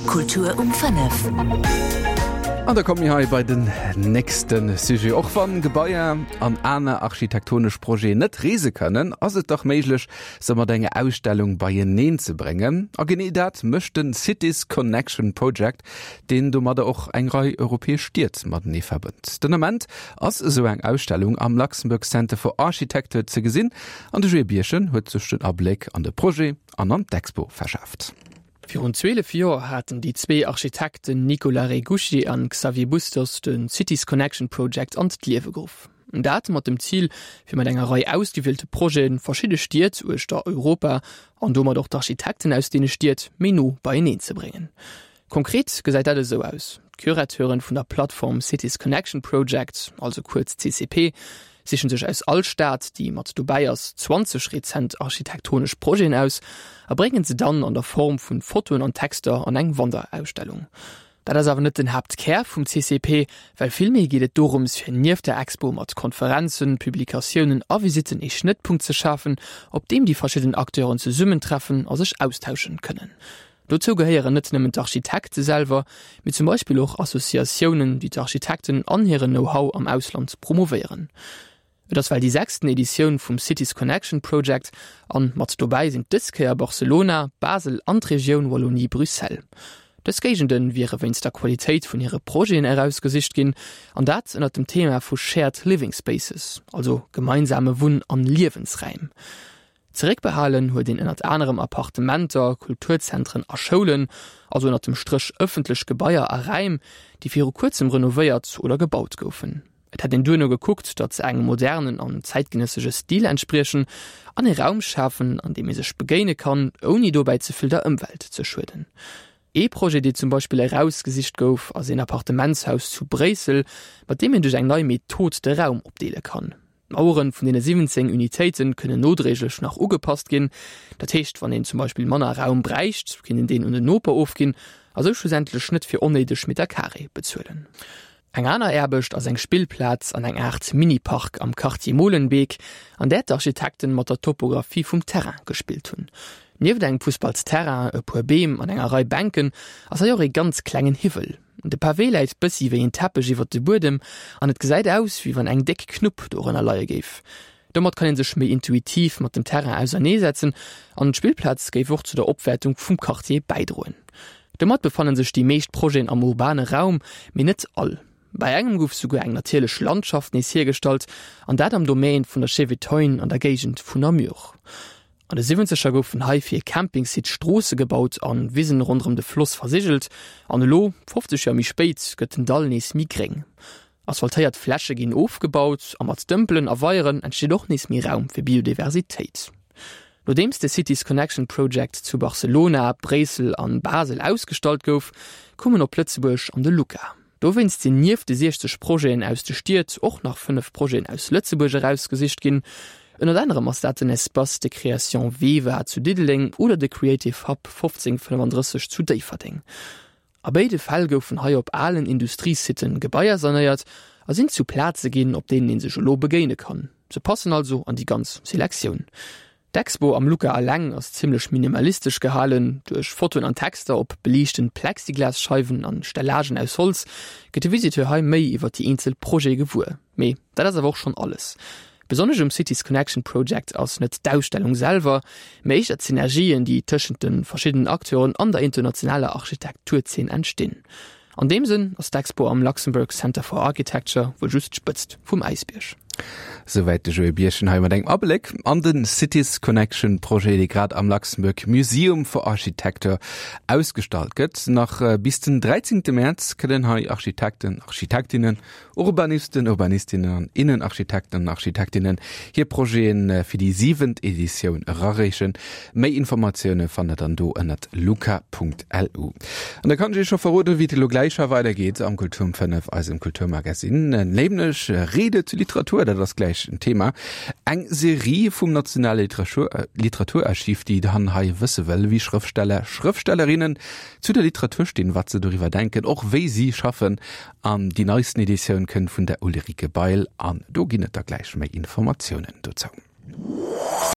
Kultur um 5. An da komme mir hei bei den nächste Sujet. Och wann Gebaier an aner architektonesch Projeten net reese kënnen, ass et dach méiglech, se mat enger Ausstellung beieneen ze bréngen. A genee dat mécht den Cities Connection Project, deen domadder och eng Rei europäesch Stied matenee verbënnt. Den Ament ass esou eng Ausstellung am Luxembourg Center for Architecture ze gesinn an de Joé Birchen huet sech den Abléck an de Projet an an d'Expo verschaaft. Virun 12 Joer haten déi zwee Architekten Nicolas Regusci an Xavier Bustos de Cities Connection Project an d'Liewe geruff. Dat mat dem Zil, fir mat enger Rei ausgewielte Projete verschidde Stied uechter Europa, an domat och d'Architekten aus deene Stied, méi no beieneen ze bréngen. Konkret gesäit dat esou aus, D'Curateuren vun der Plattform Cities Connection Project, also kuerz CCP, sichen sech aus all Stad, déi mat dobäi ass, 20 rezent architektonesch Projeten aus a bréngen se dann an der Form vun Fotoen an Texter an eng Wanderausstellung. Dat ass awer net den Haaptkär vum CCP, well villméi geet et dorëms fir nieft der Expo mat Konferenzen, Publikatiounen a Visitten ee Schnëttpunkt ze schafen, op deem déi verschidden Acteuren zesummentreffen a sech austauschen kënnen. Dozou gehéieren net nëmmen d'Architekte selwer, mee zum Beispill och Associatiounen, déi d'Architekten an hiren Know-how am Ausland promovéieren. Et ass well déi sechsten Editioun vum Cities Connection Project an mat dobäi sinn dës Kéier Barcelona, Basel an d'Regioun Wallonie-Bruxelles. Dës Géigende wiere wéinst der Qualitéit vun hire Projeten erausgesicht ginn, an dat ënnert dem Thema vu Shared Living Spaces, also gemeinsame Wunn an Liewensräim. Zeréckbehalen huet een ënnert anerem Appartementer, Kulturzentren a Schoulen, also ënnert dem Stréch ëffentlech Gebaier a Räim, déi viru kuerzem renovéiert oder gebaut goufen. Et hätt een duerno gekuckt, datt se engem modernen an zäitgenëssege Stil entspriechen an ee Raum schafen, an deem ee sech begéine kann, ouni dobäi ze vill der Ëmwelt ze schueden. Ee Projet, dee zum Beispill erausgesicht gouf, ass een Appartementshaus zu Bréissel, mat deem een duerch eng nei Method de Raum opdeele kann. D'Maueren vun deene 17 Unitéite kënnen nodréiglech nach ugepasst ginn. Dat heescht, wann een zum Beispill manner Raum bräicht, kéint een deen un den Noper ofginn a sou schlussendlech net fir onnéideg Meter carré bezuelen. Eng aner Aarbecht ass eng Spillplaz an eng Aart Mini-Park am Quartier Molenbeek, an där d'Architekten mat der Topographie vum Terrain gespillt hunn. Nieft engem Fussballsterrain, e puer Beem an enger Rei Bänken ass hei och ee ganz klengen Hiwwel. De Pavé läit bëssi wéi en Teppech iwwert de Buedem an et gesäit aus, wéi wann eng déck Knupp dorënner leie géif. Domat kann ee sech méi intuitiv mat dem Terrain auserneesetzen an d'Spillplaz géif och zu der Opwäertung vum Quartier bäidroen. Domat befanne sech déi meescht Projeten am urbane Raum, mee net all. Bei engem gouf souguer eng natierlech Landschaft nees hiergestallt an dat am Domaine vun der Chevetogne an der Géigend vun Namur. An de Siwwenzeger goufen hei fir e Campingsite Stroosse gebaut an Wisen ronderëm de Floss versigelt. An elo, 50 Joer méi spéit, gëtt den Dall nees méi gréng. Asphaltéiert Fläche ginn ofgebaut a mat Dëmpelen a Weieren entsteet och nees méi Raum fir Biodiversitéit. Nodeems de Cities Connection Project zu Barcelona, Bréissel an Basel ausgestallt gouf, koum en op Lëtzebuerg an de LUCA. Dowéinst sinn nieft de 60 Projeten aus de Stied och nach 5 Projeten aus Lëtzebuerg erausgesicht ginn. Ënnert anerem ass dat den Espace de création VEVA zu Diddeleng oder de Creative Hub 1535 zu Déifferdeng. A béide Fäll goufen hei op alen Industriesitten Gebaier sanéiert a sinn zu Plaze ginn, op deenen ee sech elo begéine kann. Se passen also an déi ganz Selektioun. D'Expo am Luca eleng ass zimmlech minimalistesch gehalen. Duerch Fotoen an Texter op beliichten Plexiglasscheiwen an Stellagen aus Holz gëtt de Visiteur hei méi iwwer déi eenzel Projete gewuer. Mee dat ass awer och schonn alles. Besonnesch um Cities Connection Project ass net d'Ausstellung selwer, mee éischter d'Synergien, déi tëschent de verschiddenen Acteuren an der internationaler Architekturzeen entstinn. An deem Sënn ass d'Expo am Luxembourg Center for Architecture wuel just d'Spëtzt vum Äisbierg. Souwäit de Joé Birchen hei mat engem Abléck an de Cities Connection Projet, dee grad am Luxembourg Museum for Architecture ausgestallt gëtt. Nach bis den 13 Mäerz kënnen hei Architekten, Architektinnen, Urbanisten, Urbanistinnen an Innenarchitekten an Architektinnen hir Projete fir déi siwent Editioun erareechen. Méi Informatioune fannt der dann do ënnert luca.lu. An da kann ech iech scho verroden, wéi et elo gläich hei weidergeet am Kultur um 5, eisem Kulturmagasinn. Nämlech Rede zu Literatur, dat ass gläich en Thema. Eng Serie vum Nationale Literaturarchiv, déi dann hei wësse wëll, wéi Schrëftsteller, Schrëftstellerinnen zu der Literatur stinn, wat se doriwwer denken, och wéi si schaffen An déi neisten Editioun kënnt vun der Ulrike Bail an do ginn et da gläich méi Informatiounen dozou.